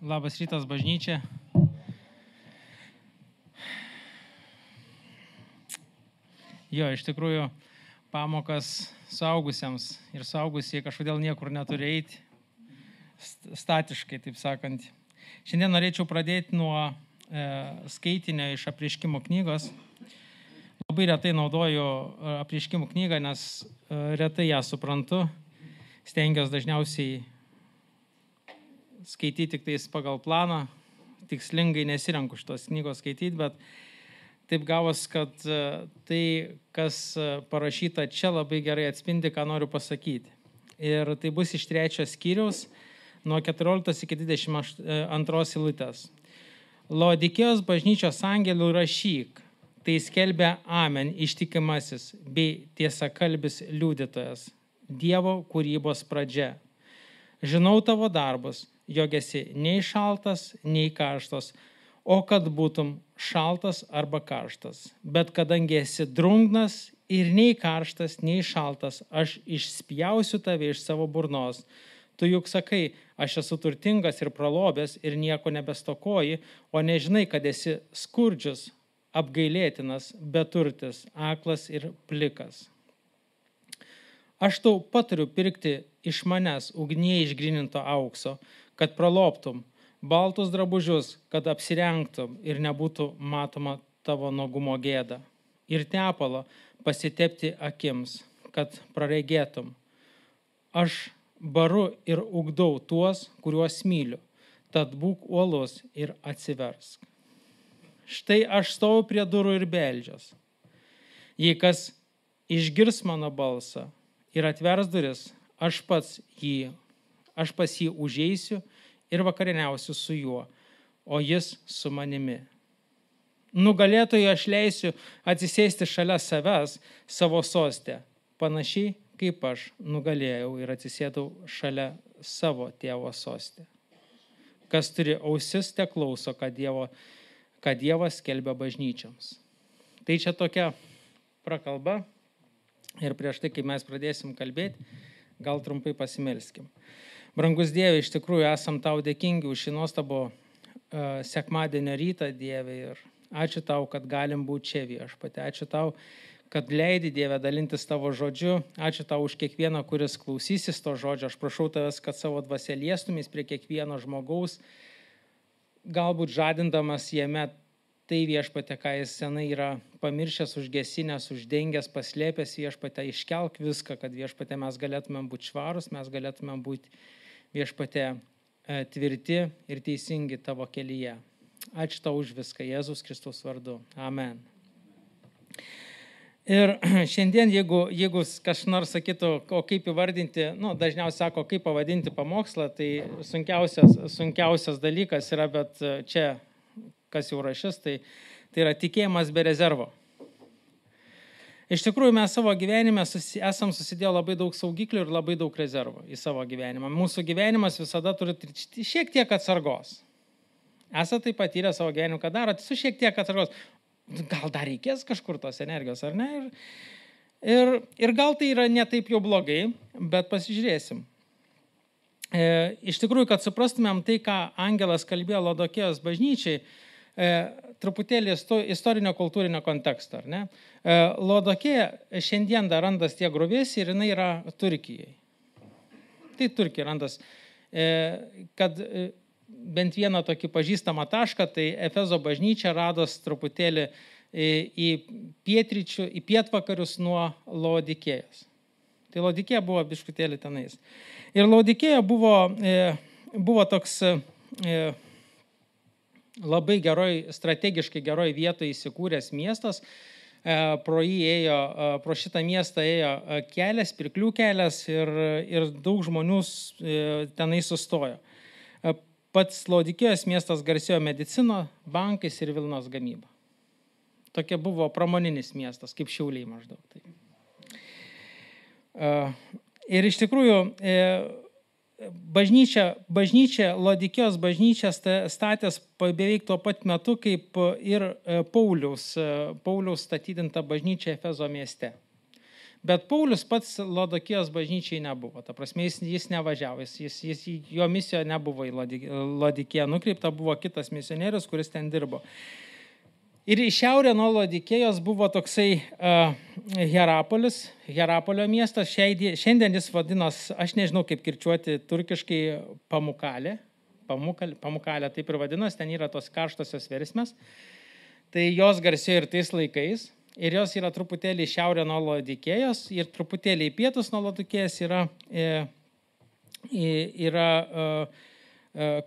Labas rytas, bažnyčia. Jo, iš tikrųjų, pamokas suaugusiems ir suaugusiai kažkodėl niekur neturi eiti, statiškai, taip sakant. Šiandien norėčiau pradėti nuo skaitinio iš Apreiškimo knygos. Labai retai naudoju Apreiškimo knygą, nes retai ją suprantu. Stengiuosi dažniausiai skaityti tik tais pagal planą. Tikslingai nesirenku šitos knygos skaityti, bet taip gavos, kad tai, kas parašyta čia, labai gerai atspindi, ką noriu pasakyti. Ir tai bus iš 3 skyriaus, nuo 14 iki 22 eilutės. Laodikėjos bažnyčios angelų rašyk, tai skelbia Amen ištikimasis bei tiesakalbis liudytojas, Dievo kūrybos pradžia. Žinau tavo darbus, jog esi nei šaltas, nei karštas, o kad būtum šaltas arba karštas. Bet kadangi esi drungnas ir nei karštas, nei šaltas, aš išspjausiu tave iš savo burnos. Tu juk sakai, aš esu turtingas ir pralobęs ir nieko nebestokoji, o nežinai, kad esi skurdžius, apgailėtinas, beturtis, aklas ir plikas. Aš tau patariu pirkti iš manęs ugnyje išgryninto aukso, kad praloptum, baltus drabužius, kad apsirengtum ir nebūtų matoma tavo nuogumo gėda. Ir tepalo pasitepti akims, kad praregėtum. Aš baru ir ugdau tuos, kuriuos myliu, tad būk uolus ir atsiversk. Štai aš stoviu prie durų ir beldžiuos. Jei kas išgirs mano balsą ir atvers duris, aš pas jį užeisiu ir vakarieniausiu su juo, o jis su manimi. Nugalėtojui aš leisiu atsisėsti šalia savęs savo soste, panašiai kaip aš nugalėjau ir atsisėdau šalia savo tėvo soste. Kas turi ausis, te klauso, ką Dievas skelbia bažnyčioms. Tai čia tokia prakalba ir prieš tai, kai mes pradėsim kalbėti, gal trumpai pasimelskim. Brangus Dieve, iš tikrųjų esam tau dėkingi už šį nuostabų sekmadienio rytą, Dieve, ir ačiū tau, kad galim būti čia Viešpatie. Ačiū tau, kad leidi, Dieve, dalintis tavo žodžiu. Ačiū tau už kiekvieną, kuris klausysis to žodžio. Aš prašau tavęs, kad savo dvasia liestumės prie kiekvieno žmogaus, galbūt žadindamas jame tai Viešpatie, ką jis senai yra pamiršęs, užgesinęs, uždengęs, paslėpęs, Viešpatie, iškelk viską, kad Viešpatie mes galėtumėm būti švarus, mes galėtumėm būti Viešpatie tvirti ir teisingi tavo kelyje. Ačiū tau už viską, Jėzus Kristus vardu. Amen. Ir šiandien, jeigu kas nors sakytų, o kaip įvardinti, dažniausiai sako, kaip pavadinti pamokslą, tai sunkiausias dalykas yra, bet čia, kas jau rašys, tai yra tikėjimas be rezervo. Iš tikrųjų, mes savo gyvenime esam susidėję labai daug saugiklių ir labai daug rezervų į savo gyvenimą. Mūsų gyvenimas visada turi šiek tiek atsargos. Esate tai patyrę savo gyvenimą, ką darote, su šiek tiek atsargos. Gal dar reikės kažkur tos energijos, ar ne? Ir gal tai yra ne taip jau blogai, bet pasižiūrėsim. Iš tikrųjų, kad suprastumėm tai, ką angelas kalbėjo Laodikėjos bažnyčiai, truputėlį istorinio kultūrinio konteksto, ar ne? Laodikėja šiandien dar randas tie gruvėsiai ir jinai yra Turkijai. Tai Turkija randas, kad bent vieną tokį pažįstamą tašką, tai Efezo bažnyčia rados truputėlį į pietvakarius nuo Laodikėjos. Tai Laodikėja buvo biškutėlį tenais. Ir Laodikėja buvo toks labai strategiškai geroj vietoje įsikūręs miestas. Pro šitą miestą ėjo kelias, pirklių kelias ir daug žmonių tenai sustojo. Pats Laodikėjos miestas garsėjo medicino, bankais ir vilnos gamyba. Tokia buvo pramoninis miestas, kaip Šiauliai maždaug. Ir iš tikrųjų, Laodikėjos bažnyčia statęs beveik tuo pat metu, kaip ir Pauliaus statydinta bažnyčia Efezo mieste. Bet Paulius pats Lodokijos bažnyčiai nebuvo. Ta prasme, jis nevažiavo, jo misija nebuvo į Lodikiją nukreipta, buvo kitas misionierius, kuris ten dirbo. Ir į šiaurę nuo Lodikėjos buvo toksai Hierapolis, Hierapolio miestas. Šiandien jis vadinos, aš nežinau kaip kirčiuoti turkiškai, Pamukalė. Pamukalė taip ir vadinos, ten yra tos karštosios versmės. Tai jos garsėjo ir tais laikais. Ir jos yra truputėlį šiaurė nuo Lodikėjos ir truputėlį į pietus nuo Lodikėjos yra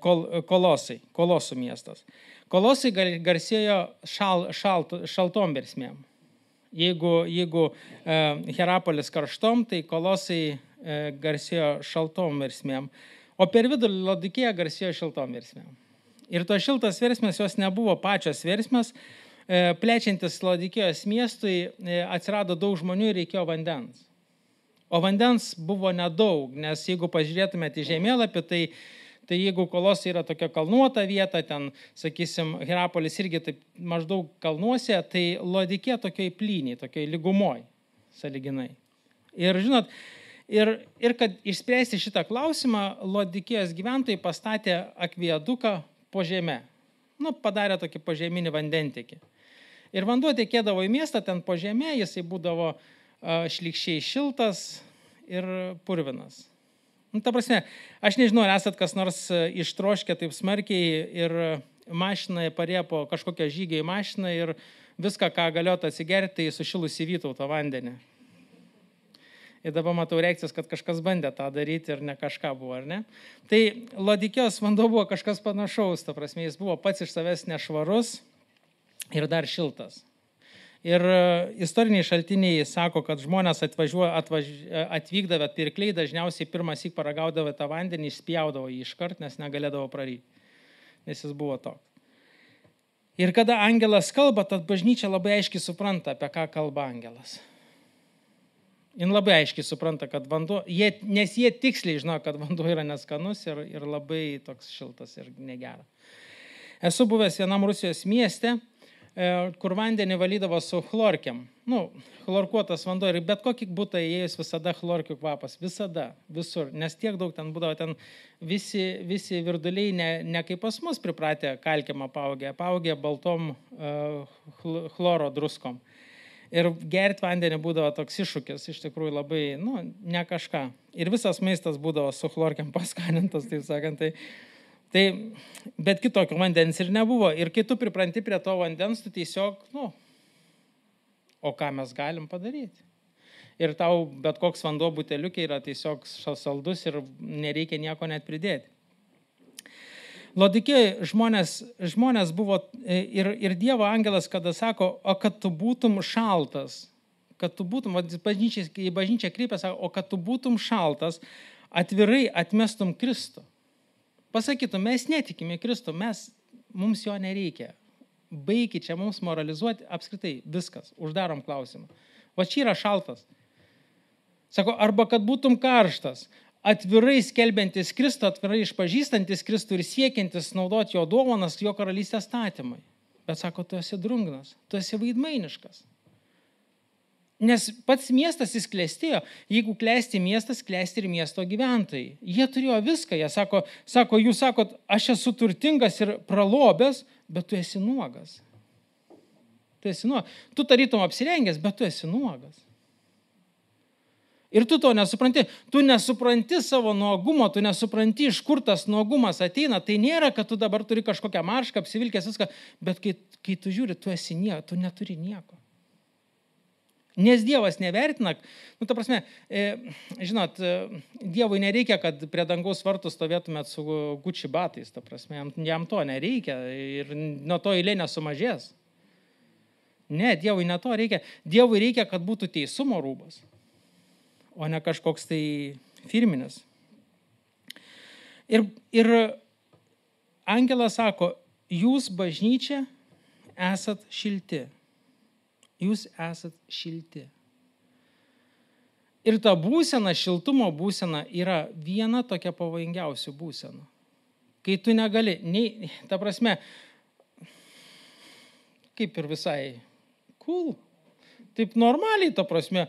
Kolosų miestas. Kolosai garsėjo šaltom versmėm. Jeigu Hierapolis karštom, tai Kolosai garsėjo šaltom versmėm. O per vidurį Lodikėja garsėjo šiltom versmėm. Ir to šiltas versmės jos nebuvo pačios versmės. Plečiantis Lodikėjos miestui atsirado daug žmonių ir reikėjo vandens. O vandens buvo nedaug, nes jeigu pažiūrėtumėte į žemėlapį, tai jeigu Kolosai yra tokia kalnuota vieta, ten, sakysim, Hierapolis irgi taip maždaug kalnuose, tai Lodikėja tokioj plyniai, tokioj lygumoj, sąlyginai. Ir žinot, ir kad išspręsti šitą klausimą, Lodikėjos gyventojai pastatė akviaduką po žeme. Padarė tokį požeminį vandentekį. Ir vanduo tekėdavo į miestą, ten po žeme, jisai būdavo šlykščiai šiltas ir purvinas. Ta prasme, aš nežinau, ar esat kas nors ištroškę taip smarkiai ir mašinoje parėjo po kažkokią žygį į mašiną ir viską, ką galėtų atsigerti, tai sušilusi Vytauto vandenį. Ir dabar matau reakcijas, kad kažkas bandė tą daryti ir ne kažką buvo, ar ne? Tai Lodikėjos vanduo buvo kažkas panašaus, ta prasme, jis buvo pats iš savęs nešvarus ir dar šiltas. Ir istoriniai šaltiniai sako, kad žmonės atvykdavę pirkliai dažniausiai pirmąsyk paragaudavo tą vandenį, išspjaudavo jį iškart, nes negalėdavo praryti, nes jis buvo toks. Ir kada angelas kalba, tad bažnyčia labai aiškiai supranta, apie ką kalba angelas. Jis labai aiškiai supranta, kad vanduo, nes jie tiksliai žino, kad vanduo yra neskanus ir labai toks šiltas ir negera. Esu buvęs vienam Rusijos mieste, kur vandenį valydavo su chlorkiam. Chlorkuotas vanduo ir bet kokį butą įėjus visada chlorkių kvapas. Visada, visur. Nes tiek daug ten būdavo, ten visi virduliai ne kaip pas mus pripratę kalkiam apaugę baltom chloro druskom. Ir gerti vandenį būdavo toks iššūkis, iš tikrųjų labai, ne kažką. Ir visas maistas būdavo su chlorkiam paskanintas, taip sakant. Bet kitokio vandens ir nebuvo. Ir kai tu pripranti prie to vandens, tu tiesiog, o ką mes galim padaryti? Ir tau bet koks vanduo buteliukė yra tiesiog saldus ir nereikia nieko net pridėti. Lodikėjai žmonės buvo ir Dievo angelas, kada sako, o kad tu būtum šaltas, kad tu būtum, į bažnyčią kreipia, sako, o kad tu būtum šaltas, atvirai atmestum Kristų. Pasakytum, mes netikime Kristų, mums jo nereikia. Baikit čia mums moralizuoti, apskritai viskas, uždarom klausimą. Va čia yra šaltas. Sako, arba kad būtum karštas, atvirai skelbiantis Kristų, atvirai išpažįstantis Kristų ir siekiantis naudoti jo dovanas, jo karalystės statymai. Bet sako, tu esi drungnas, tu esi vaidmainiškas. Nes pats miestas jis klestėjo. Jeigu klesti miestas, klesti ir miesto gyventojai. Jie turėjo viską. Jie sako, jūs sakot, aš esu turtingas ir pralobęs, bet tu esi nuogas. Tu tarytum apsirengęs, bet tu esi nuogas. Ir tu to nesupranti. Tu nesupranti savo nuogumo, tu nesupranti, iš kur tas nuogumas ateina. Tai nėra, kad tu dabar turi kažkokią maršką, apsivilkęs viską, bet kai tu žiūri, tu neturi nieko. Nes Dievas nevertina, ta prasme, žinot, Dievui nereikia, kad prie dangaus vartų stovėtumėt su Gucci batais, ta prasme, jam to nereikia ir nuo to eilė nesumažės. Ne, Dievui ne to reikia. Dievui reikia, kad būtų teisumo rūbas, o ne kažkoks tai firminis. Ir angelas sako, jūs bažnyčia esat šilti. Jūs esat šilti. Ir ta būsena, šiltumo būsena yra viena tokia pavojingiausių būsenų. Kai tu negali, ta prasme, kaip ir visai cool, taip normaliai, ta prasme,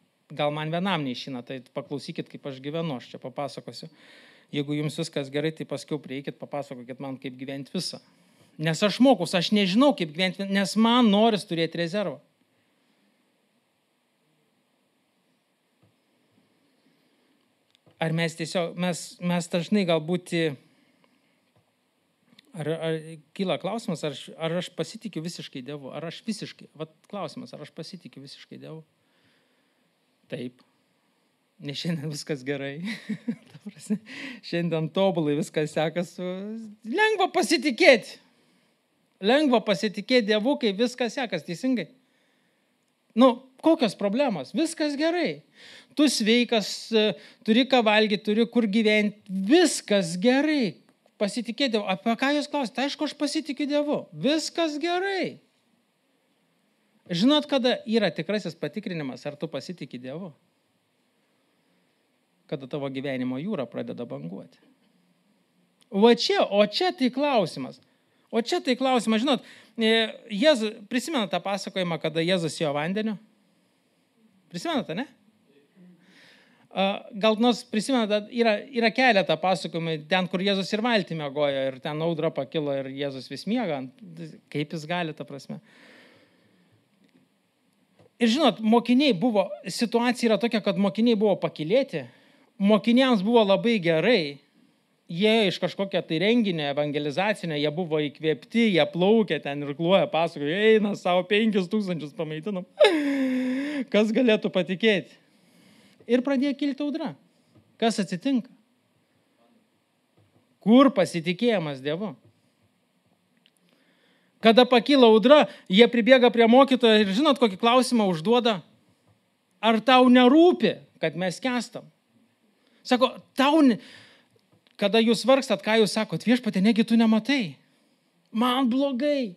Gal man vienam neišina, tai paklausykit, kaip aš gyvenu, aš čia papasakosiu. Jeigu jums viskas gerai, tai paskiau prieikit, papasakokit man, kaip gyventi visą. Nes aš mokus, aš nežinau, kaip gyventi, nes man noris turėti rezervą. Ar mes tiesiog, mes dažnai galbūt, ar kyla klausimas, ar aš pasitikiu visiškai Dievu, ar aš visiškai, klausimas, ar aš pasitikiu visiškai Dievu? Taip. Nes šiandien viskas gerai. Šiandien tobulai viskas sekas. Lengva pasitikėti. Lengva pasitikėti Dievu, kai viskas sekas teisingai. Kokios problemos? Viskas gerai. Tu sveikas, turi ką valgyti, turi kur gyventi. Viskas gerai. Pasitikėti Dievu. Apie ką jūs klausite? Aišku, aš pasitikiu Dievu. Viskas gerai. Žinot, kada yra tikrasis patikrinimas, ar tu pasitiki Dievu? Kada tavo gyvenimo jūra pradeda banguoti. O čia tai klausimas. Žinot, prisimena tą pasakojimą, kada Jėzus ėjo vandeniu? Prisimenate, ne? Gal nors prisimena, yra keletą pasakojimų, ten, kur Jėzus ir valtį miegojo, ir ten audra pakilo, ir Jėzus vis miega. Kaip jis gali, ta prasme? Ir žinot, situacija yra tokia, kad mokiniai buvo pakylėti, mokiniams buvo labai gerai, jie iš kažkokio tai renginio evangelizacinio, jie buvo įkvėpti, jie plaukė ten ir kluoja, pasakoja, eina savo 5000 pamaitinam. Kas galėtų patikėti? Ir pradėjo kilti audra. Kas atsitinka? Kur pasitikėjimas Dievu? Kada pakyla audra, jie pribėga prie mokytojo ir žinot, kokį klausimą užduoda? Ar tau nerūpi, kad mes skęstam? Sako, kada jūs vargstat, ką jūs sakot? Viešpatie, negi tu nematai? Man blogai.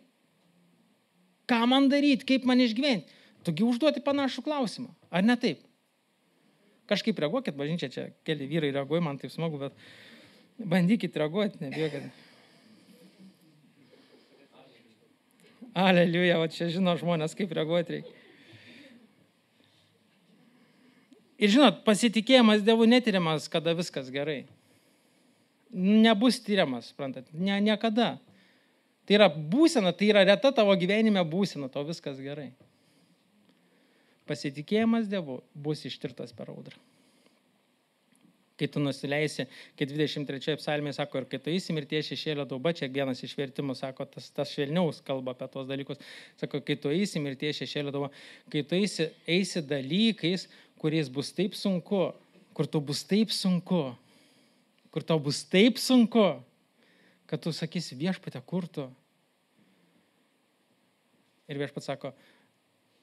Ką man daryti, kaip man išgyventi? Tugi užduoti panašų klausimą. Ar ne taip? Kažkaip reaguokit, bažnyčia, čia keli vyrai reaguoja, man taip smagu, bet bandykit reaguoti, nebijokit. Aleliuja, čia žino žmonės, kaip reaguoti reikia. Ir žinot, pasitikėjimas Dievu netiriamas, kada viskas gerai. Nebus tyriamas, suprantat, niekada. Tai yra būsena, tai yra reta tavo gyvenime būsena, tau viskas gerai. Pasitikėjimas Dievu bus ištirtas per audrą. Kai tu nusileisi, kai 23 psalmėje sako, ir kai tu eisi mirties šešėlio dauba, čia vienas iš vertimų sako, tas švelniaus kalba apie tos dalykus, sako, kai tu eisi mirties šešėlio dauba, kai tu eisi dalykais, kuriais bus taip sunku, kur tau bus taip sunku, kad tu sakysi, Viešpatie, kur tu? Ir Viešpats sako,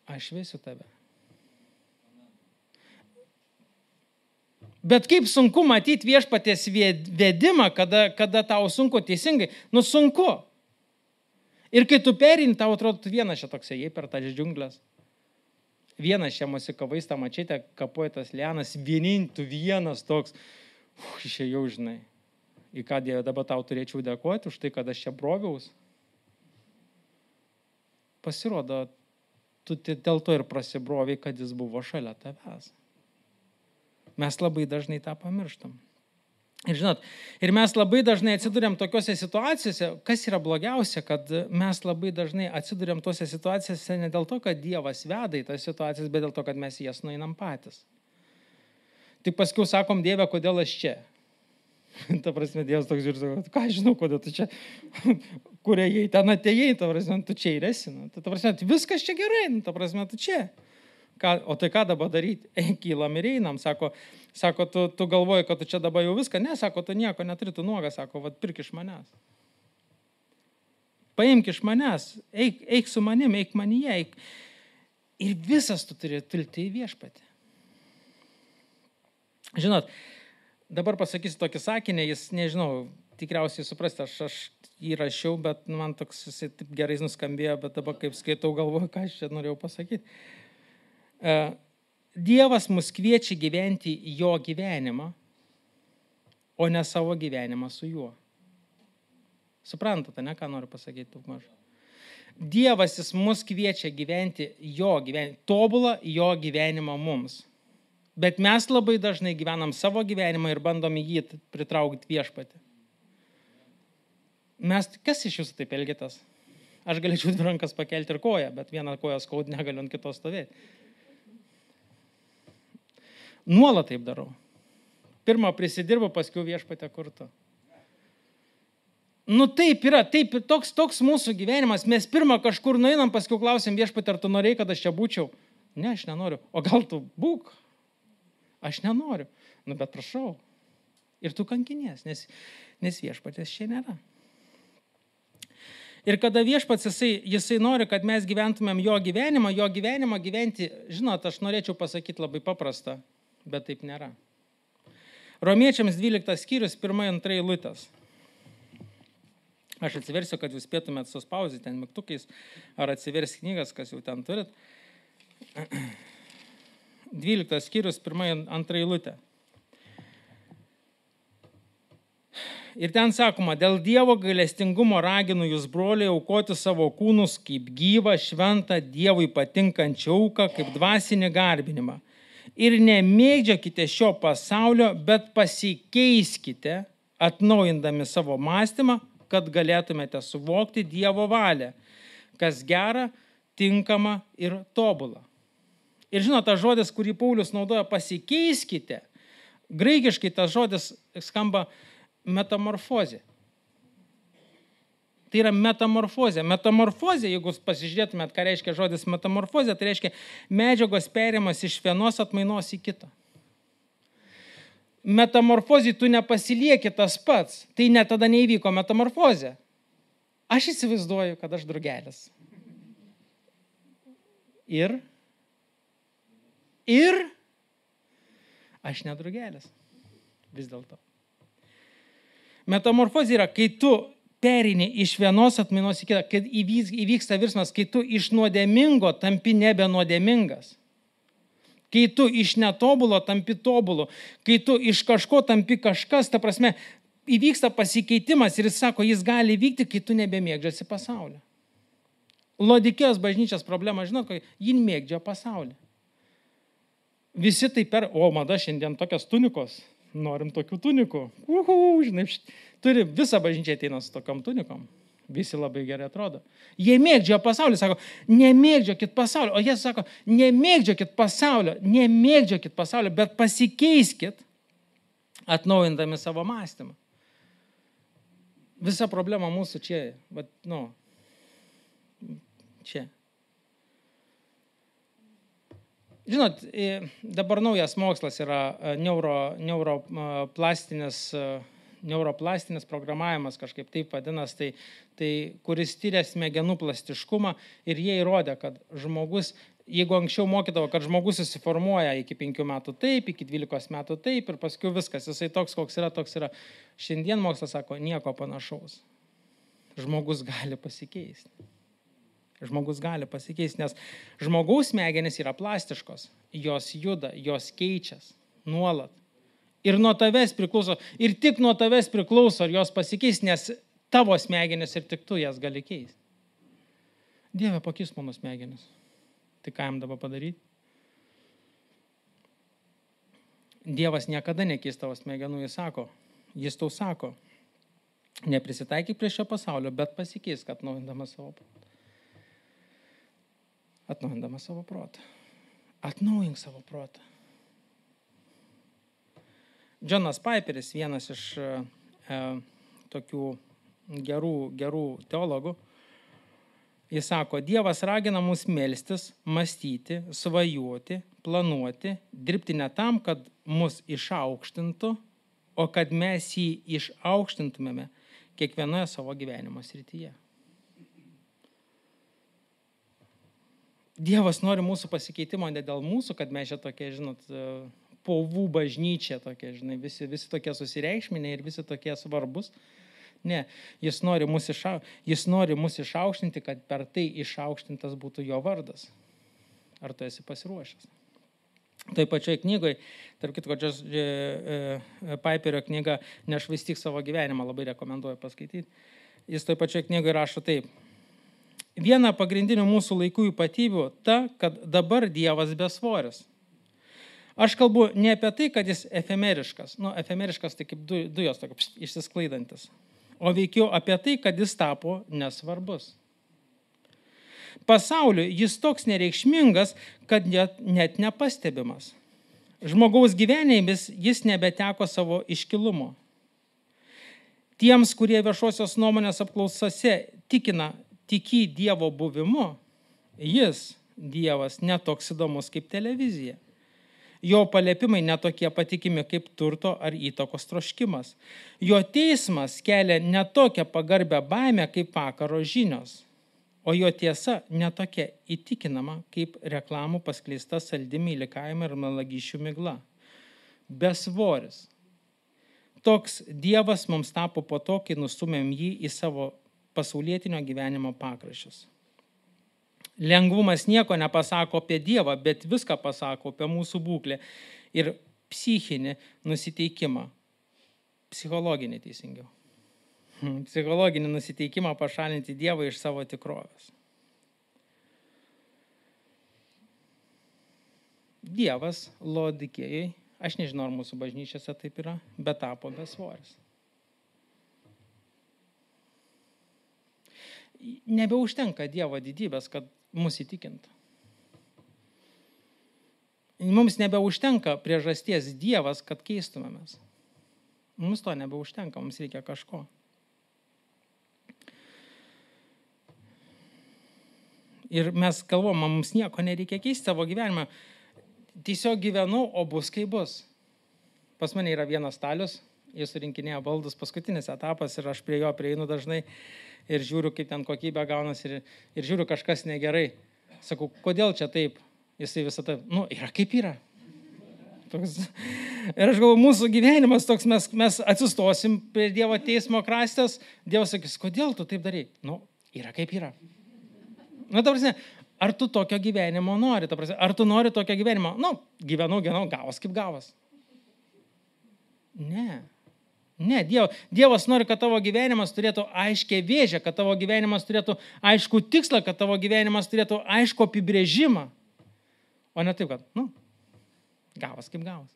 aš vesiu tave. Bet kaip sunku matyti Viešpaties vedimą, kada tau sunku teisingai, sunku. Ir kai tu perini, tau atrodo, tu vienas čia toks ėjai per tas džiunglės. Vienas čia mosikavais tą mačytę, kapoja tas lianas, tu vienas toks, išėjau, žinai. Į ką Dieve dabar tau turėčiau dėkoti už tai, kad aš čia broviaus. Pasirodo, tu dėl to ir prasibroviai, kad jis buvo šalia tavęs. Mes labai dažnai tą pamirštam. Ir žinot, ir mes labai dažnai atsiduriam tokiuose situacijose, kas yra blogiausia, kad mes labai dažnai atsiduriam tose situacijose ne dėl to, kad Dievas veda į tas situacijas, bet dėl to, kad mes jas nueinam patys. Tik paskui sakom, Dieve, kodėl aš čia? Ta prasme, Dievas toks žiūrės, ką žinau, kodėl tu čia, kur ėjai, ten atėjai, ta prasme, tu čia ir esi. Ta prasme, viskas čia gerai, ta prasme, tu čia. O tai ką dabar daryti? Kylam ir einam, sako, tu galvoji, kad tu čia dabar jau viską, ne, sako, tu nieko neturi, tu nuogas, sako, pirk iš manęs. Paimk iš manęs, eik su manim, eik manyje, eik. Ir visas tu turi tulti į Viešpatį. Žinot, dabar pasakysiu tokį sakinį, jis, nežinau, tikriausiai suprasti, aš jį rašiau, bet man toks jisai taip gerai nuskambėjo, bet dabar kaip skaitau, galvoju, ką aš čia norėjau pasakyti. Dievas mus kviečia gyventi jo gyvenimą, o ne savo gyvenimą su juo. Suprantate, ne, ką noriu pasakyti daug maž? Dievas jis mus kviečia gyventi jo gyvenimą, tobulą jo gyvenimą mums. Bet mes labai dažnai gyvenam savo gyvenimą ir bandom į jį pritraukti viešpatį. Kas iš jūsų taip elgėtės? Aš galėčiau dvi rankas pakelti ir koją, bet vieną koją skaud negaliu ant kitos stovėti. Nuolat taip darau. Pirmą prisidirbu, paskui viešpatę kurtu. Taip yra, toks mūsų gyvenimas. Mes pirmą kažkur nueinam, paskui klausim viešpatį, ar tu norėjai, kad aš čia būčiau? Ne, aš nenoriu. O gal tu būk? Aš nenoriu. Bet prašau. Ir tu kankinies, nes viešpatės čia nėra. Ir kada viešpats, jisai nori, kad mes gyventumėm jo gyvenimą gyventi, žinot, aš norėčiau pasakyti labai paprastą, bet taip nėra. Romiečiams 12 skyrius, 1-2 eilutės. Aš atsiversiu, kad jūs spėtumėt suspausyti ten mygtukais, ar atsivers knygas, kas jau ten turit. 12 skyrius, 1-2 eilutė. Ir ten sakoma, dėl Dievo gailestingumo raginu jūs, broliai, aukoti savo kūnus kaip gyvą, šventą, Dievui patinkančią auką, kaip dvasinį garbinimą. Ir nemėgdžiokite šio pasaulio, bet pasikeiskite, atnaujindami savo mąstymą, kad galėtumėte suvokti Dievo valią, kas gera, tinkama ir tobula. Ir žinot, tas žodis, kurį Paulius naudoja, pasikeiskite, graikiškai tas žodis skamba metamorfozė. Tai yra metamorfozė. Metamorfozė, jeigu pasižiūrėtumėt, ką reiškia žodis metamorfozė, tai reiškia medžiagos perėjimas iš vienos atmainos į kitą. Metamorfozė tu nepasilieki tas pats. Tai net tada neįvyko metamorfozė. Aš įsivaizduoju, kad aš drugelis. Ir aš nedrugelis. Vis dėlto. Metamorfozė yra, kai tu pereini iš vienos atmainos į kitą, kad įvyksta virsmas, kai tu iš nuodėmingo tampi nebe nuodėmingas. Kai tu iš netobulo tampi tobulu. Kai tu iš kažko tampi kažkas, ta prasme, įvyksta pasikeitimas ir jis sako, jis gali vykti, kai tu nebemėgdžiasi pasaulio. Laodikėjos bažnyčios problema, žinot, ji mėgdžia pasaulį. Visi tai mada šiandien tokios tunikos. Norim tokių tunikų. Žinai, turi visą bažnyčią ateina su tokiom tunikom. Visi labai gerai atrodo. Jie mėgdžia pasaulį, sako, nemėgdžiokit pasaulio. O jie sako, nemėgdžiokit pasaulio, bet pasikeiskit, atnaujindami savo mąstymą. Visa problema mūsų čia, čia. Žinot, dabar naujas mokslas yra neuroplastinis programavimas, kažkaip taip vadinas, tai kuris tyria smegenų plastiškumą ir jie įrodė, kad žmogus, jeigu anksčiau mokydavo, kad žmogus susiformuoja iki 5 metų taip, iki 12 metų taip ir paskui viskas, jisai toks, koks yra, toks yra. Šiandien mokslas sako, nieko panašaus. Žmogus gali pasikeisti. Žmogus gali pasikeisti, nes žmogaus smegenys yra plastiškos, jos juda, jos keičias nuolat. Ir nuo tavęs priklauso, ir tik nuo tavęs priklauso, ar jos pasikeis, nes tavo smegenys ir tik tu jas gali keisti. Dieve, pakeis mano smegenys. Tai ką jam dabar padaryti? Dievas niekada nekeis tavo smegenų, jis tau sako, neprisitaikyk prie šio pasaulio, bet pasikeis, kad atnaujindamas savo protą. Atnaujindamas savo protą. Atnaujink savo protą. Džonas Piperis, vienas iš tokių gerų teologų, jis sako, Dievas ragina mus melstis, mąstyti, svajoti, planuoti, dirbti ne tam, kad mus išaukštintų, o kad mes jį išaukštintumėme kiekvienoje savo gyvenimo srityje. Dievas nori mūsų pasikeitimo ne dėl mūsų, kad mes čia tokie, žinot, povų bažnyčia tokie, žinai, visi tokie susireikšminė ir visi tokie svarbus. Ne, jis nori mus išaukštinti, kad per tai išaukštintas būtų jo vardas. Ar tu esi pasiruošęs? Tai pačioje knygoje, tarp kitko, Piperio knyga Nešvaistyk savo gyvenimą, labai rekomenduoju paskaityti. Jis tai pačioje knygoje rašo taip. Viena pagrindinių mūsų laikų ypatybių ta, kad dabar Dievas besvoris. Aš kalbu ne apie tai, kad jis efemeriškas. Efemeriškas tai kaip dujos išsisklaidantis. O veikiau apie tai, kad jis tapo nesvarbus. Pasauliu jis toks nereikšmingas, kad net nepastebimas. Žmogaus gyvenėmis jis nebeteko savo iškilumo. Tiems, kurie viešosios nuomonės apklausose tiki Dievo buvimu, jis, Dievas, netoks įdomus kaip televizija. Jo paliepimai netokie patikimi kaip turto ar įtakos troškimas. Jo teismas kelia netokią pagarbę baimę kaip vakaro žinios. O jo tiesa netokia įtikinama kaip reklamų paskleista saldi meilikavimai ir melagysčių migla. Besvoris. Toks Dievas mums tapo po to, kai nustumėm jį į savo pasaulietinio gyvenimo pakraščius. Lengvumas nieko nepasako apie Dievą, bet viską pasako apie mūsų būklę ir psichinį nusiteikimą. Psichologinį teisingiau. Psichologinį nusiteikimą pašalinti Dievą iš savo tikrovės. Dievas Laodikėjai, aš nežinau, ar mūsų bažnyčiose taip yra, bet tapo besvoris. Nebeužtenka Dievo didybės, kad mus įtikintų. Mums nebeužtenka priežasties Dievas, kad keistumėmės. Mums to nebeužtenka, mums reikia kažko. Ir mes galvom, mums nieko nereikia keisti savo gyvenimą. Tiesiog gyvenu, o bus kaip bus. Pas mane yra vienas stalius, jis surinkinėja baldus, paskutinis etapas ir aš prie jo prieinu dažnai ir žiūriu, kaip ten kokybė gaunas ir žiūriu, kažkas negerai. Sakau, kodėl čia taip? Jisai visą tai, yra kaip yra. Toks. Ir aš galvoju, mūsų gyvenimas toks, mes atsistosim prie Dievo teismo krastės, Dievas sakys, kodėl tu taip darai? Yra kaip yra. Ta prasme, ar tu tokio gyvenimo nori? Ta prasme, ar tu nori tokio gyvenimo? Gyvenau, gavas kaip gavas. Ne, Dievas nori, kad tavo gyvenimas turėtų aiškę vėžę, kad tavo gyvenimas turėtų aiškų tikslą, kad tavo gyvenimas turėtų aiškų apibrėžimą. O ne taip, kad, gavas kaip gavas.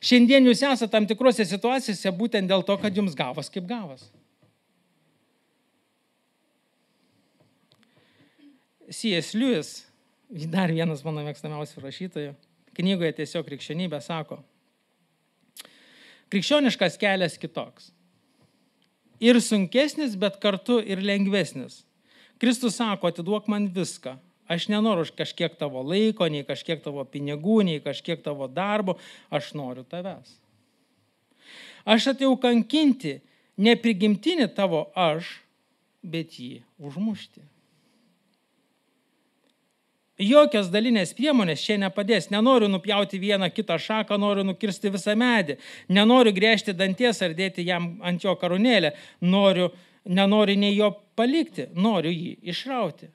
Šiandien jūs esate tam tikrose situacijose būtent dėl to, kad jums gavas kaip gavas. C.S. Lewis, dar vienas mano mėgstamiausių rašytojų, knygoje Tiesiog krikščionybė sako, krikščioniškas kelias kitoks. Ir sunkesnis, bet kartu ir lengvesnis. Kristus sako, atiduok man viską. Aš nenoriu kažkiek tavo laiko, nei kažkiek tavo pinigų, nei kažkiek tavo darbo. Aš noriu tavęs. Aš atėjau kankinti ne prigimtinį tavo aš, bet jį užmušti. Jokios dalinės priemonės čia nepadės. Nenoriu nupjauti vieną kitą šaką, noriu nukirsti visą medį. Nenoriu gręžti danties ar dėti jam ant jo karūnėlę. Nenoriu nei jo palikti, noriu jį išrauti.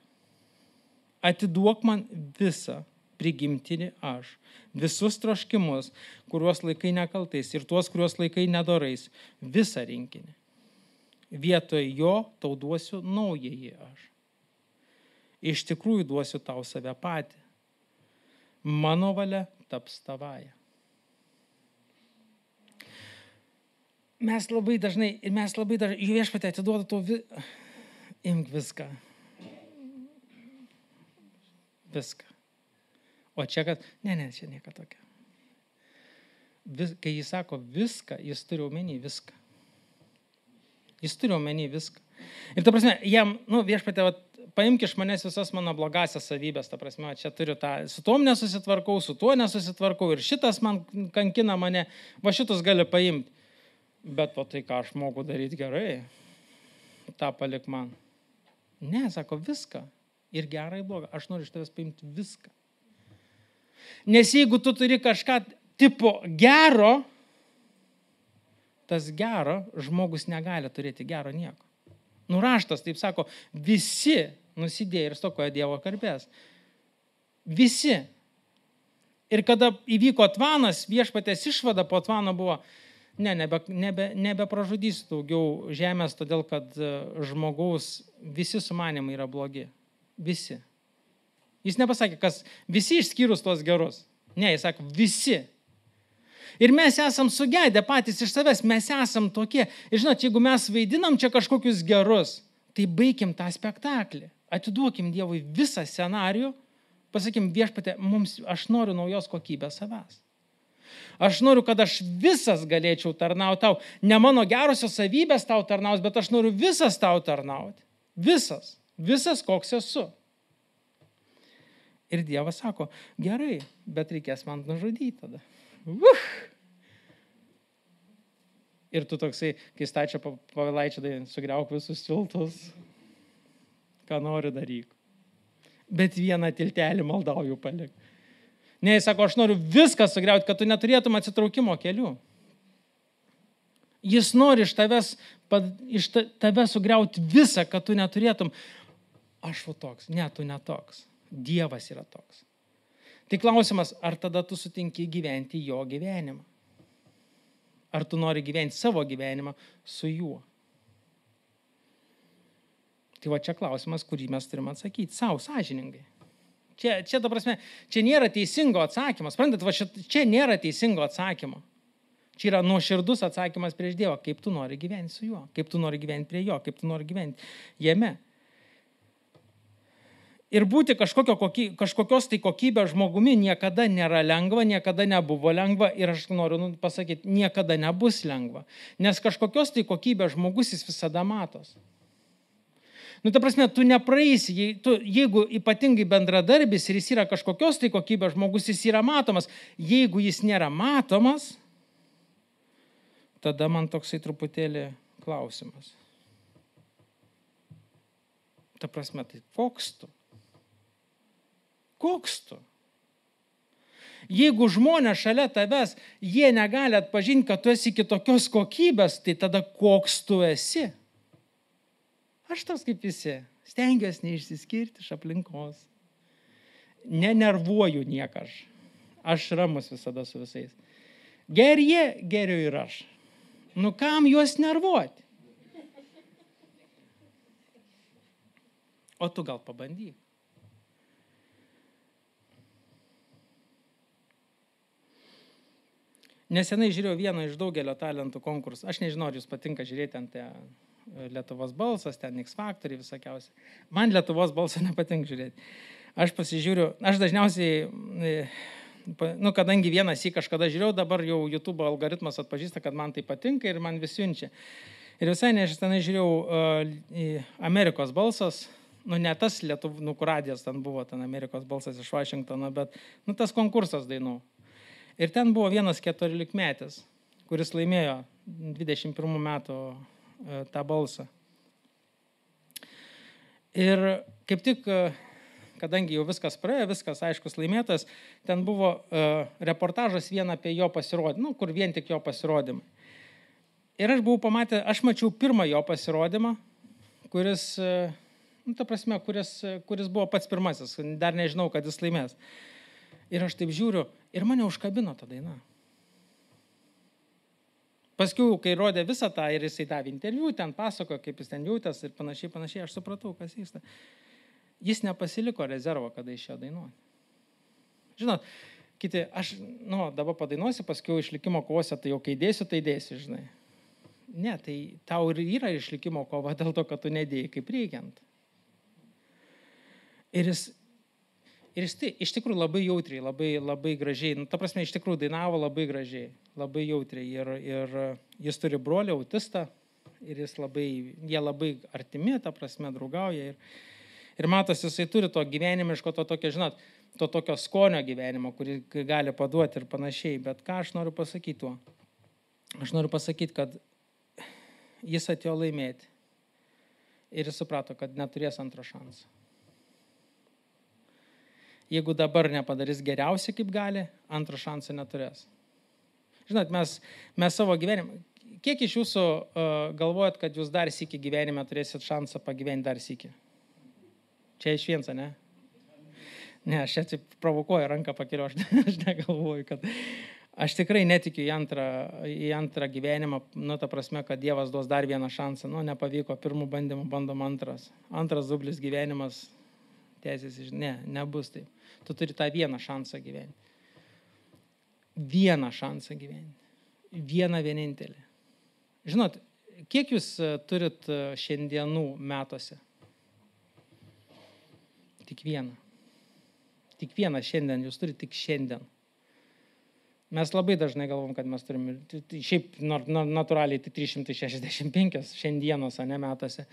Atiduok man visą prigimtinį aš. Visus troškimus, kuriuos laikai nekaltais ir tuos, kuriuos laikai nedorais. Visą rinkinį. Vietoj jo tau duosiu naująjį aš. Iš tikrųjų duosiu tau save patį. Mano valia taps tavaja. Mes labai dažnai, Viešpatie atiduoda tau imk viską. Viską. O čia, kad, čia nieko tokio. Kai jis sako viską, jis turi omeny viską. Jis turi omeny viską. Ir ta prasme, jam, Viešpatie, paimk iš manęs visas mano blogasias savybės, ta prasme, čia turiu tą, su tom nesusitvarkau, su tuo nesusitvarkau ir šitas man kankina mane, va šitus gali paimti. Bet o tai, ką aš moku daryti gerai, tą palik man. Ne, sako, viską. Ir gerą, ir blogą. Aš noriu iš tavęs paimti viską. Nes jeigu tu turi kažką tipo gero, tas gero žmogus negali turėti gero nieko. Raštas, taip sako, visi nusidėjo ir stokoja Dievo garbės. Visi. Ir kada įvyko Tvanas, Viešpaties išvada po Tvano buvo, nebepražudysiu daugiau žemės, todėl kad žmogaus visi sumanimai yra blogi. Visi. Jis nepasakė, kas visi išskyrus tuos gerus. Ne, jis sako, visi. Ir mes esam sugedę patys iš savęs, mes esam tokie. Ir žinot, jeigu mes vaidinam čia kažkokius gerus, tai baikim tą spektaklį. Atiduokim Dievui visą scenarijų, pasakim, Viešpatie, aš noriu naujos kokybės savęs. Aš noriu, kad aš visas galėčiau tarnauti tau. Ne mano gerosios savybės tau tarnaus, bet aš noriu visas tau tarnauti. Visas. Visas, koks esu. Ir Dievas sako, gerai, bet reikės man nužudyti tada. Ir tu toksai, kai stačia Povilaičio, tai sugriauk visus tiltus, ką nori daryk. Bet vieną tiltelį maldauju palik. Ne, jis sako, aš noriu viską sugriauti, kad tu neturėtum atsitraukimo kelių. Jis nori iš tave sugriauti visą, kad tu neturėtum. Aš toks, ne, tu netoks. Dievas yra toks. Tai klausimas, ar tada tu sutinki gyventi jo gyvenimą? Ar tu nori gyventi savo gyvenimą su juo? Tai va čia klausimas, kurį mes turime atsakyti savo sąžiningai. Čia, ta prasme, čia nėra teisingo atsakymo. Sprendat, va čia nėra teisingo atsakymo. Čia yra nuoširdus atsakymas prieš Dievą, kaip tu nori gyventi su juo, kaip tu nori gyventi prie jo, kaip tu nori gyventi jame. Ir būti kažkokios tai kokybės žmogumi niekada nėra lengva, niekada nebuvo lengva ir aš noriu pasakyti, niekada nebus lengva. Nes kažkokios tai kokybės žmogus jis visada matos. Ta prasme, tu nepraeisi, jeigu ypatingai bendradarbis ir jis yra kažkokios tai kokybės žmogus, jis yra matomas. Jeigu jis nėra matomas, tada man toksai truputėlį klausimas. Ta prasme, tai koks tu? Koks tu? Jeigu žmonės šalia tavęs, jie negali atpažinti, kad tu esi kitokios kokybės, tai tada koks tu esi? Aš tas kaip visi, stengiuosi neišsiskirti iš aplinkos. Nenervuoju nieką aš. Aš ramus visada su visais. Gerie, geriu ir aš. Kam juos nervuoti? O tu gal pabandyk. Nesenai žiūrėjau vieną iš daugelio talentų konkursų. Aš nežinau, ar jūs patinka žiūrėti ant Lietuvos balsas, ten X Factoriai visokiausiai. Man Lietuvos balsą nepatinka žiūrėti. Aš pasižiūriu, aš dažniausiai, kadangi vienas į kažkada žiūrėjau, dabar jau YouTube algoritmas atpažįsta, kad man tai patinka ir man vis siunčia. Ir visai nežinai žiūrėjau Amerikos balsas, ne tas Lietuvų, kur radijas ten buvo, ten Amerikos balsas iš Vašingtono, bet tas konkursas dainų. Ir ten buvo vienas 14-metis, kuris laimėjo 21 metų tą balsą. Ir kaip tik, kadangi jau viskas praėjo, viskas aiškus laimėtas, ten buvo reportažas vien apie jo pasirodymą, kur vien tik jo pasirodymą. Ir aš mačiau pirmą jo pasirodymą, kuris, kuris buvo pats pirmasis, dar nežinau, kad jis laimės. Ir aš taip žiūriu, ir mane užkabino ta daina. Paskiau, kai rodė visą tą ir jisai davė interviu, ten pasakojo, kaip jis ten jautės ir panašiai, aš supratau, kas vyksta. Jis nepasiliko rezervo, kada išėjo dainuoti. Žinot, kiti, aš, dabar padainuosiu, paskiau išlikimo kovose, tai jau kai dėsiu, tai dėsiu, žinai. Ne, tai tau ir yra išlikimo kova dėl to, kad tu nedėjai kaip reikiant. Ir jis tai iš tikrųjų labai jautriai, labai gražiai, ta prasme, iš tikrųjų dainavo labai gražiai, labai jautriai. Ir jis turi brolį autistą ir jie labai artimi, ta prasme, draugauja. Ir matos, jisai turi to gyvenimiško, to tokio skonio gyvenimo, kurį gali paduoti ir panašiai. Bet ką aš noriu pasakyti tuo? Aš noriu pasakyti, kad jis atėjo laimėti ir jis suprato, kad neturės antro šansą. Jeigu dabar nepadarys geriausiai, kaip gali, antro šansą neturės. Žinot, mes savo gyvenimą, kiek iš jūsų galvojat, kad jūs dar sykį gyvenime turėsit šansą pagyventi dar sykį? Čia iš viensa, ne? Ne, aš čia provokuoju, ranką pakeliu, aš negalvoju, kad aš tikrai netikiu į antrą gyvenimą, ta prasme, kad Dievas duos dar vieną šansą. Nepavyko, pirmų bandymų bandom antras. Antras dublis gyvenimas, teisės, nebus taip. Tu turi tą vieną šansą gyventi. vieną šansą gyventi. Vieną vienintelį. Žinot, kiek jūs turit šiandienų metuose? Tik vieną. Tik vieną šiandien, jūs turite tik šiandien. Mes labai dažnai galvom, kad mes turime, šiaip natūraliai tai 365 šiandienos, ne metuose.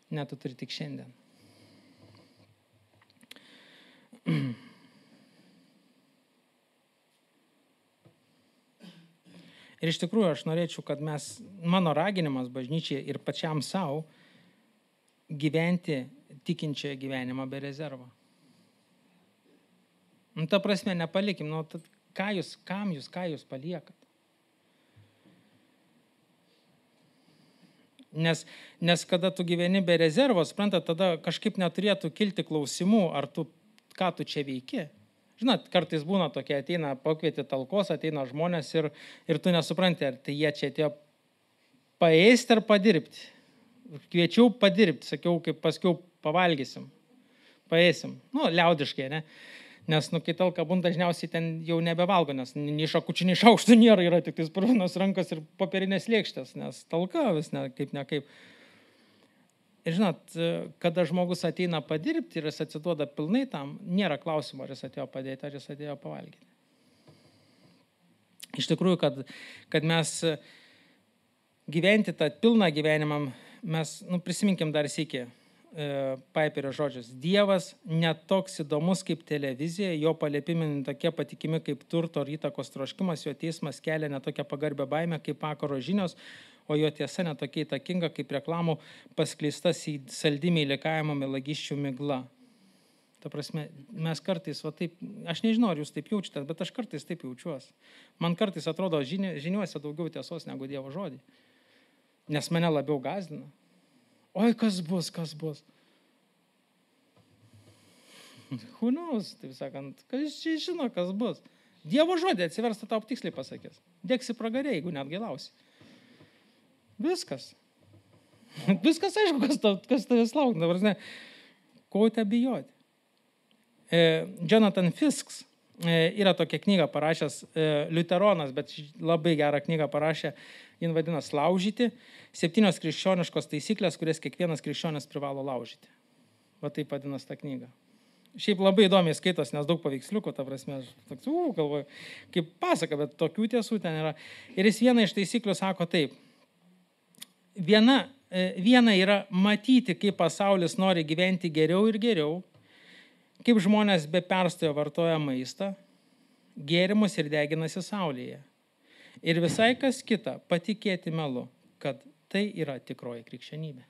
Ne, tu turi tik šiandien. Ir iš tikrųjų aš norėčiau, kad mano raginimas bažnyčiai ir pačiam savo gyventi tikinčią gyvenimą be rezervo. Ta prasme, nepalikim, ką jūs paliekat. Nes kada tu gyveni be rezervo, suprantat, tada kažkaip neturėtų kilti klausimų, ką tu čia veiki. Žinot, kartais būna tokie, ateina pakvieti talkos, ateina žmonės ir tu nesupranti, ar tai jie čia atėjo paėsti ar padirbti. Kviečiau padirbti, sakiau, kaip paskiau pavalgysim, paėsim. Liaudiškai, ne? Nes, kai talka būna, dažniausiai ten jau nebevalgo, nes nei šakučių, nei šaukštų nėra, yra tik tais purvinos rankos ir popierinės lėkštės, nes talka vis nekaip. Ir žinot, kada žmogus ateina padirbti ir jis atsiduoda pilnai tam, nėra klausimo, ar jis atėjo padėti, ar jis atėjo pavalgyti. Iš tikrųjų, kad mes gyventi tą pilną gyvenimą, mes, prisiminkim dar sykį Piperio žodžius. Dievas netoks įdomus kaip televizija, jo paliepimai tokie patikimi kaip turto ar įtakos troškimas, jo teismas kelia netokią pagarbę baimę kaip vakaro žinios, o jo tiesa netokia įtakinga kaip reklamų paskleistas į saldymį įlikavimo melagiščių migla. Ta prasme, mes kartais, taip, aš nežinau, ar jūs taip jaučiatės, bet aš kartais taip jaučiuosi. Man kartais atrodo žiniuose daugiau tiesos negu Dievo žodį, nes mane labiau gąsdina. Oi, kas bus? Who knows, taip sakant, kas čia žino, kas bus. Dievo žodį atsiversta tau tiksliai pasakys. Dėksi pragarė, jeigu net gėlausi. Viskas. Viskas aišku, kas tavęs laukia. Ko te bijoti? Jonathan Fisks yra tokia knyga parašęs, liuteronas, bet labai gerą knygą parašė, jin vadinasi Laužyti. 7 krikščioniškos taisyklės, kurias kiekvienas krikščionis privalo laužyti. Va taip vadinasi ta knyga. Šiaip labai įdomiai skaitos, nes daug paveiksliukų, ta prasme, aš toks, galvoju, kaip pasaka, bet tokių tiesų ten yra. Ir jis vieną iš taisyklių sako taip. Viena yra matyti, kaip pasaulis nori gyventi geriau ir geriau, kaip žmonės be perstojo vartoja maistą, gėrimus ir deginasi saulėje. Ir visai kas kita, patikėti melu, kad tai yra tikroji krikščionybė.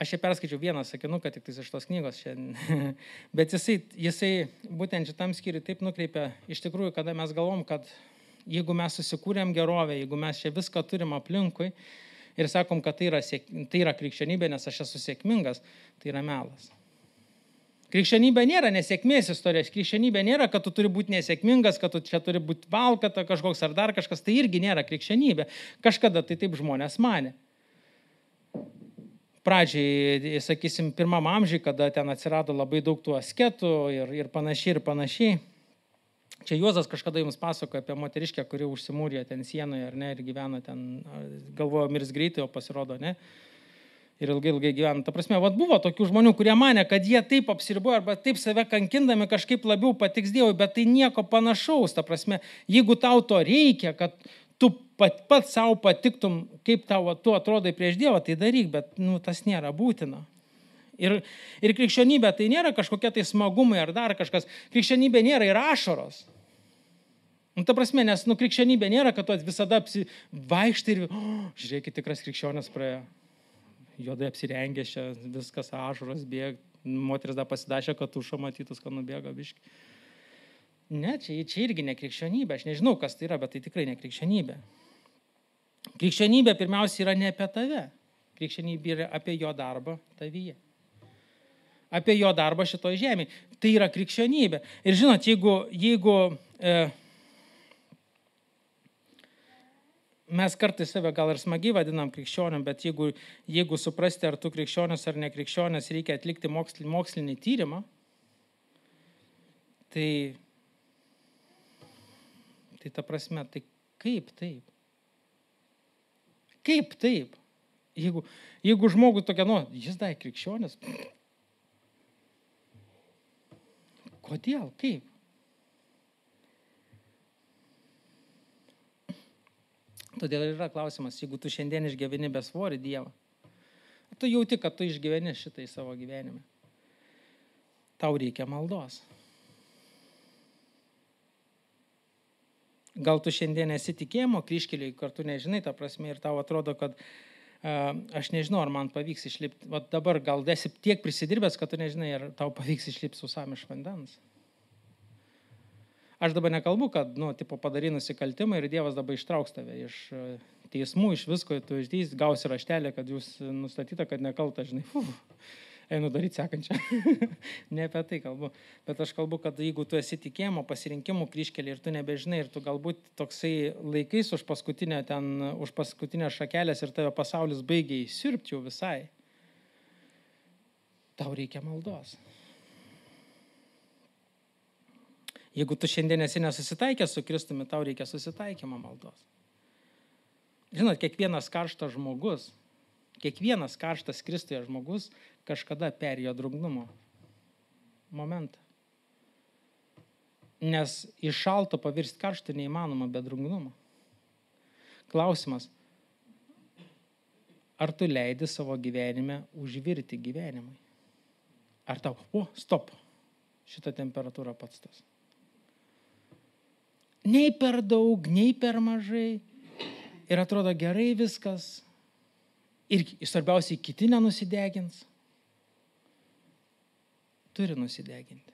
Aš čia perskaičiau vieną sakinuką tik iš tos knygos šiandien, bet jisai būtent šitam skyriui taip nukreipia, iš tikrųjų, kada mes galvom, kad jeigu mes susikūrėm gerovę, jeigu mes čia viską turim aplinkui ir sakom, kad tai yra krikščionybė, nes aš esu sėkmingas, tai yra melas. Krikščionybė nėra nesėkmės istorijos, krikščionybė nėra, kad tu turi būti nesėkmingas, kad tu čia turi būti valkata kažkoks ar dar kažkas, tai irgi nėra krikščionybė. Kažkada tai taip žmonės manė. Pradžiai, sakysim, 1 amžiui, kada ten atsirado labai daug tų asketų ir panašiai. Čia Juozas kažkada jums pasakojo apie moteriškę, kuri užsimūrė ten sienoje, ar ne, ir gyvena ten, galvojo mirs greitai, o pasirodo, ne. Ir ilgai gyvena. Ta prasme, buvo tokių žmonių, kurie manė, kad jie taip apsiribojo arba taip save kankindami kažkaip labiau patiks Dievui, bet tai nieko panašaus. Ta prasme, jeigu tau to reikia, kad tu pat savo patiktum, kaip tu atrodai prieš Dievą, tai daryk, bet tas nėra būtina. Ir krikščionybė tai nėra kažkokie tai smagumai ar dar kažkas. Krikščionybė nėra ir ašaros. Ta prasme, nes krikščionybė nėra, kad tu visada vaikštai ir žiūrėkit, tikras krikščionis praėjo. Juodai apsirengęs čia, viskas ašaros bėga, moteris dar pasidašė, kad tušą matytus, kad nubėga biški. Ne, čia irgi ne krikščionybė, aš nežinau, kas tai yra, bet tai tikrai ne krikščionybė. Krikščionybė pirmiausia yra ne apie tave, krikščionybė yra apie jo darbą tavyje. Apie jo darbą šitoj žemėje. Tai yra krikščionybė. Ir žinot, jeigu mes kartais save gal ir smagiai vadinam krikščioniu, bet jeigu suprasti, ar tu krikščionis ar ne krikščionis, reikia atlikti mokslinį tyrimą, Tai ta prasme, tai kaip taip? Kaip taip? Jeigu žmogus tokia, jis dar krikščionis. Kodėl? Kaip? Todėl yra klausimas, jeigu tu šiandien išgyveni besvorį Dievą, tu jauti, kad tu išgyveni šitai savo gyvenime. Tau reikia maldos. Gal tu šiandien esi tikėjimo kryžkelėje, kartu nežinai tą prasme ir tau atrodo, kad aš nežinau, ar man pavyks išlipti. Vat dabar gal esi tiek prisidirbęs, kad tu nežinai, ar tau pavyks išlipti sausam iš vandens. Aš dabar nekalbu, kad, padarai nusikaltimą ir Dievas dabar ištrauks tave iš teismų, iš visko, tu išdys, gausi raštelę, kad jūs nustatyta, kad nekalta, žinai, einu daryti sekančią. Ne apie tai kalbu. Bet aš kalbu, kad jeigu tu esi tikėjimo pasirinkimų kryžkelė ir tu nebežinai, ir tu galbūt toksai laikais už paskutinę šakelės ir tave pasaulis baigia įsirpti jau visai, tau reikia maldos. Jeigu tu šiandien esi nesusitaikęs su Kristumi, tau reikia susitaikymo maldos. Žinot, kiekvienas karštas Kristuje žmogus kažkada perėjo drungnumo momentą. Nes iš šalto pavirsti karštą neįmanoma be drungnumo. Klausimas, ar tu leidi savo gyvenime užvirti gyvenimui? Ar tau, stop, šita temperatūra pats tas. Nei per daug, nei per mažai. Ir atrodo gerai viskas. Ir svarbiausiai kiti nenusidegins. Turi nusideginti.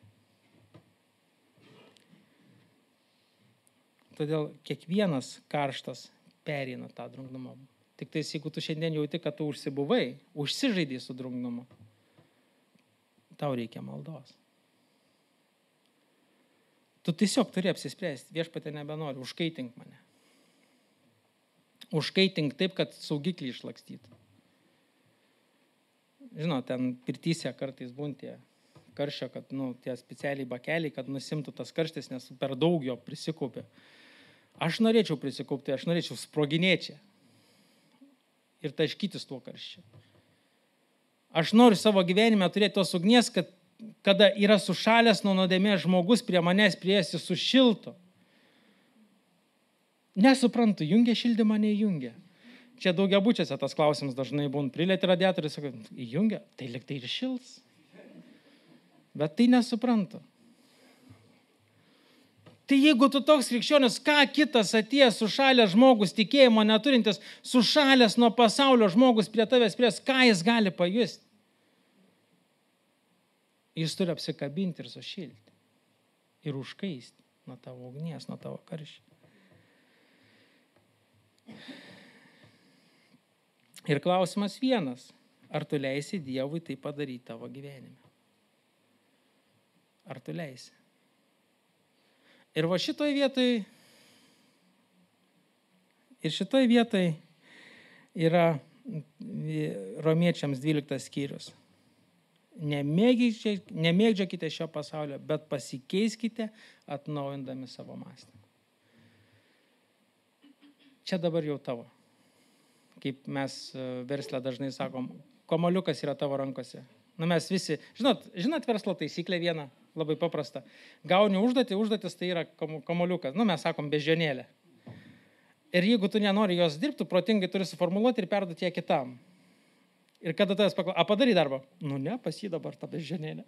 Todėl kiekvienas karštas pereina tą drungnumą. Tik tais, jeigu tu šiandien jauti, kad tu užsižaidai su drungnumu, tau reikia maldos. Tu tiesiog turi apsispręsti, viešpatie nebenori, užkaitink mane. Užkaitink taip, kad saugiklį išlakstytų. Žinot, ten pirtyse kartais būntie karščio, kad tie specialiai bakeliai, kad nusimtų tas karštis, nes per daug jo prisikaupė. Aš norėčiau prisikaupti, aš norėčiau sproginėti ir taškytis tuo karščiu. Aš noriu savo gyvenime turėti tos ugnies, kad kada yra sušalęs nuo nuodėmės žmogus prie manęs priesi sušiltų. Nesuprantu, jungia šildymą, neįjungia. Čia daugiabučiuose tas klausimas dažnai būna. Prilieti radiatorių, sako, įjungia, tai lyg tai ir šils. Bet tai nesuprantu. Tai jeigu tu toks krikščionis, ką kitas atėjęs sušalęs žmogus, tikėjimo neturintis, sušalęs nuo pasaulio žmogus prie tavęs pries, ką jis gali pajusti? Jis turi apsikabinti ir sušilti. Ir užkaisti nuo tavo ugnies, nuo tavo karščio. Ir klausimas vienas. Ar tu leisi Dievui tai padaryti tavo gyvenime? Ar tu leisi? Ir va šitoj vietoj yra Romiečiams 12 skyrius. Nemėgdžiokite šio pasaulio, bet pasikeiskite atnaujindami savo mąstymą. Čia dabar jau tavo. Kaip mes versle dažnai sakom, kamuoliukas yra tavo rankose. Mes visi, žinot verslo taisyklę vieną, labai paprasta. Gauni užduotis tai yra kamuoliukas. Mes sakom beždžionėlė. Ir jeigu tu nenori jos dirbti, protingai turi suformuluoti ir perduoti ją kitam. Ir kada tavęs paklausia, padarai darbą? Ne, pas jį dabar ta beždžionėlė.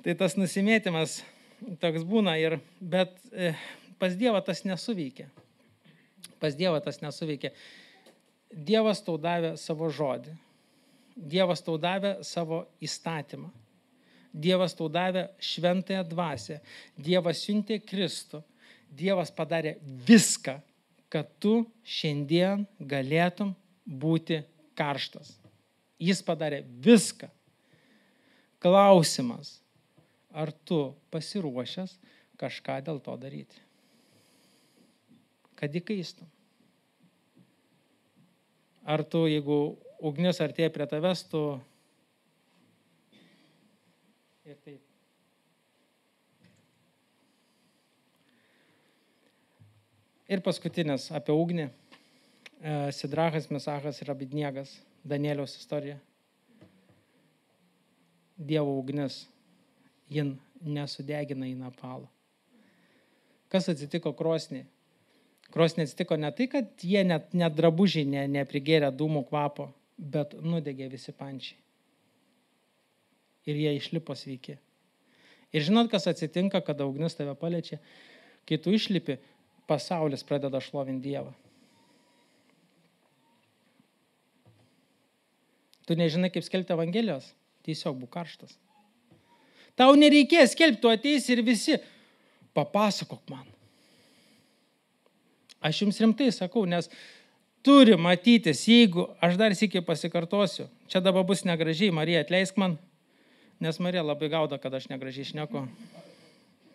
Tai tas nusimėtimas toks būna, bet pas Dievą tas nesuveikia. Dievas tau davė savo žodį. Dievas tau davė savo įstatymą. Dievas tau davė šventąją dvasią. Dievas siuntė Kristų. Dievas padarė viską, kad tu šiandien galėtum būti karštas. Jis padarė viską. Klausimas, ar tu pasiruošęs kažką dėl to daryti? Kad įkaistum. Ar tu, jeigu ugnis artėja prie tavęs, tu ir taip Ir paskutinis apie ugnį. Sidrachas, Mesachas ir Abedniegas. Danieliaus istorija. Dievo ugnis. Jin nesudegina į napalą. Kas atsitiko krosnį? Krosnį atsitiko ne tai, kad jie net drabužiai neprigėrė dūmų kvapo, bet nudegė visi pančiai. Ir jie išlipo sveiki. Ir žinot, kas atsitinka, kada ugnis tave paliečia? Kai tu išlipi, pasaulis pradeda šlovinti Dievą. Tu nežinai, kaip skelbti Evangelijos? Tiesiog būk karštas. Tau nereikės skelbti, tu ateisi ir visi papasakok man. Aš jums rimtai sakau, nes turi matytis, jeigu, aš dar sykį pasikartosiu, čia dabar bus negražiai, Marija, atleisk man, nes Marija labai gauda, kad aš negražiai šneku.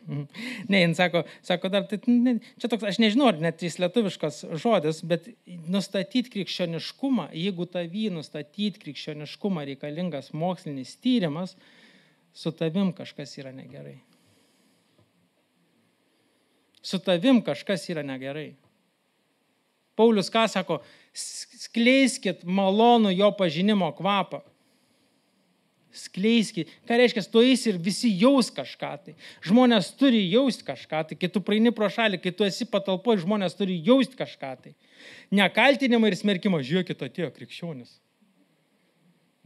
Ne, jin sako dar, čia toks, aš nežinau, ar net jis lietuviškas žodis, bet nustatyti krikščioniškumą, jeigu tavį nustatyti krikščioniškumą reikalingas mokslinis tyrimas, su tavim kažkas yra negerai. Su tavim kažkas yra negerai. Paulius ką sako? Skleiskit malonų jo pažinimo kvapą. Skleiskit. Ką reiškia, tu eisi ir visi jaus kažką tai. Žmonės turi jausti kažką tai. Kai tu praeini pro šalį, kai tu esi patalpoje, žmonės turi jausti kažką tai. Ne kaltinimą ir smerkimą. Žiūrėkit, atėjo krikščionis.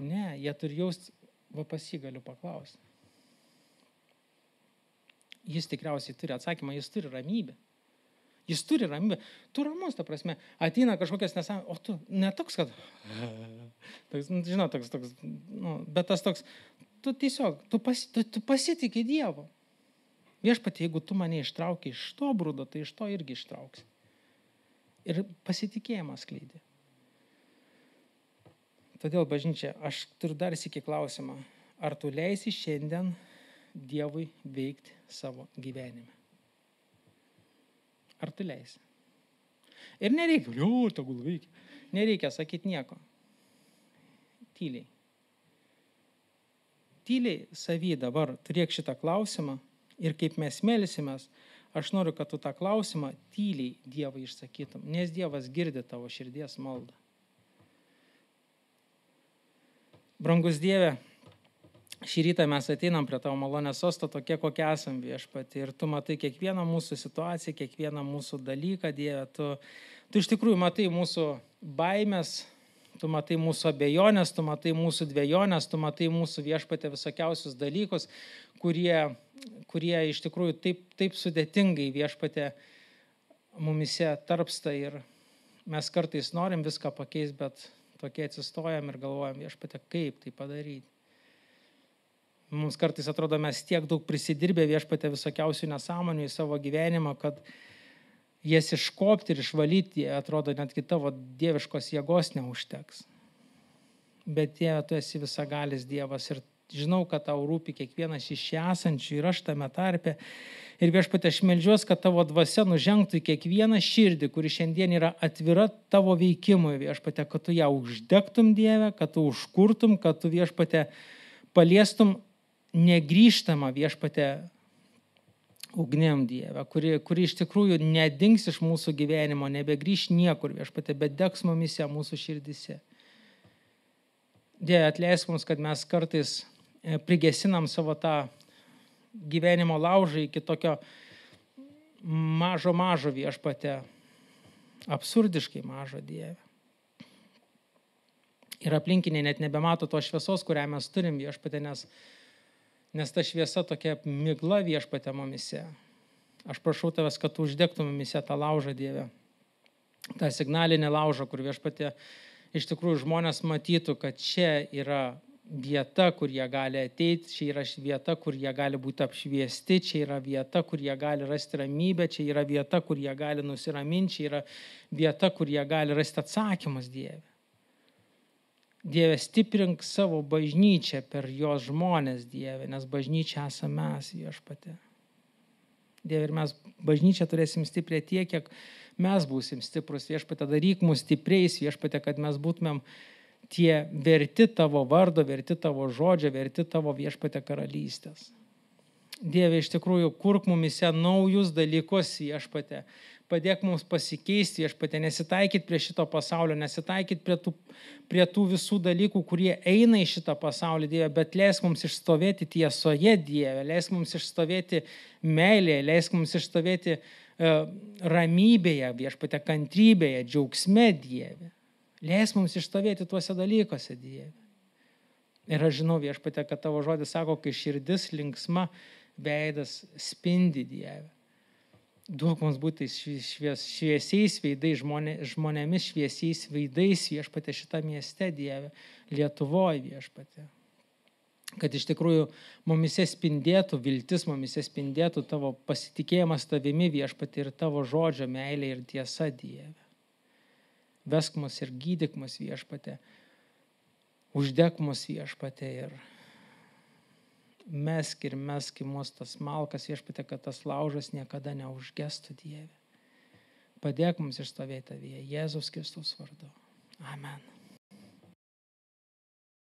Ne, jie turi jausti, va pas jį galiu paklausti. Jis tikriausiai turi atsakymą, jis turi ramybę. Jis turi ramybę. Tu ramus, ta prasme. Ateina kažkokias nesąmonės, o tu netoks, kad... Žinau, toks, bet tas toks, tu tiesiog, tu pasitiki Dievo. Viešpatie, jeigu tu mane ištrauki iš to brudo, tai iš to irgi ištrauksi. Ir pasitikėjimas skleidė. Todėl, bažnyčia, aš turiu dar sykį klausimą. Ar tu leisi šiandien Dievui veikti savo gyvenime? Ar tu leisi? Ir nereikia, tegul veikia. Nereikia sakyti nieko. Tyliai. Tyliai savy dabar turėk šitą klausimą ir kaip mes melsimės, aš noriu, kad tu tą klausimą tyliai Dievui išsakytum, nes Dievas girdi tavo širdies maldą. Brangus Dieve, šį rytą mes ateinam prie tavo malonės sosto tokie, kokie esam Viešpatie. Ir tu matai kiekvieną mūsų situaciją, kiekvieną mūsų dalyką, Dieve. Tu iš tikrųjų matai mūsų baimės, tu matai mūsų abejonės, tu matai mūsų dvejonės, tu matai mūsų Viešpatie visokiausius dalykus, kurie iš tikrųjų taip sudėtingai Viešpatie mumise tarpsta. Ir mes kartais norim viską pakeisti, bet tokie atsistojam ir galvojam, Viešpatie, kaip tai padaryti. Mums kartais atrodo, mes tiek daug prisidirbę Viešpatie visokiausių nesąmonių į savo gyvenimą, kad jas iškopti ir išvalyti, atrodo, netgi tavo dieviškos jėgos neužteks. Bet Dieve, tu esi visagalis Dievas ir žinau, kad tau rūpi kiekvienas iš čia esančių ir aš tame tarpe. Ir Viešpatie, aš meldžiuos, kad tavo dvasia nužengtų į kiekvieną širdį, kuri šiandien yra atvira tavo veikimui, Viešpatie, kad tu ją uždegtum, Dieve, kad tu užkurtum, kad tu, Viešpatie, paliestum negrįžtama, Viešpatie, ugnim, Dieve, kuri iš tikrųjų nedings iš mūsų gyvenimo, nebegrįš niekur, Viešpatie, bet degs mumise mūsų širdise. Dieve, atleisk mums, kad mes kartais prigesinam savo tą gyvenimo laužą iki tokio mažo Viešpatie, absurdiškai mažo, Dieve. Ir aplinkiniai net nebemato to šviesos, kurią mes turim, Viešpatie, nes ta šviesa tokia migla, Viešpatie, mumise. Aš prašau tavęs, kad tu uždegtum mumise tą laužą, Dieve. tą signalinį laužą, kur Viešpatie iš tikrųjų žmonės matytų, kad čia yra vieta, kur jie gali ateiti, čia yra vieta, kur jie gali būti apšviesti, čia yra vieta, kur jie gali rasti ramybę, čia yra vieta, kur jie gali nusiraminti, čia yra vieta, kur jie gali rasti atsakymus, Dieve. Dieve, stiprink savo bažnyčią per jos žmonės, Dieve, nes bažnyčia esame mes, Viešpatie. Dieve, ir mes bažnyčią turėsim stipriai tiek, kiek mes būsim stiprus, Viešpatie, daryk mus stipriais, Viešpatie, kad mes būtumėm tie verti tavo vardo, verti tavo žodžio, verti tavo, Viešpatie, karalystės. Dieve, iš tikrųjų, kurk mumise naujus dalykus, Viešpatie. padėk mums pasikeisti, viešpatie, nesitaikyti prie šito pasaulio, nesitaikyti prie tų visų dalykų, kurie eina į šitą pasaulį, Dieve, bet leisk mums išstovėti tiesoje, Dieve, leisk mums išstovėti meilėje, leisk mums išstovėti ramybėje, viešpatie, kantrybėje, džiaugsme, Dieve. Leisk mums išstovėti tuose dalykuose, Dieve. Ir aš žinau, viešpatie, kad tavo žodis sako, kai širdis linksma, veidas spindi, Dieve. Duok mums būti šviesiais veidais, žmonėmis šviesiais veidais, viešpatie, šitą mieste, Dieve, Lietuvoje, viešpatie. Kad iš tikrųjų mumise spindėtų viltis, mumise spindėtų tavo pasitikėjimas tavimi, viešpatie, ir tavo žodžio meilė ir tiesa, Dieve. Vesk mus ir gydyk mus, viešpatie. Uždek mus, viešpatie, ir mesk į mus tas malkas, viešpatie, kad tas laužas niekada neužgestų, Dieve. Padėk mums išstovėti tavyje, Jėzaus Kristaus vardu. Amen.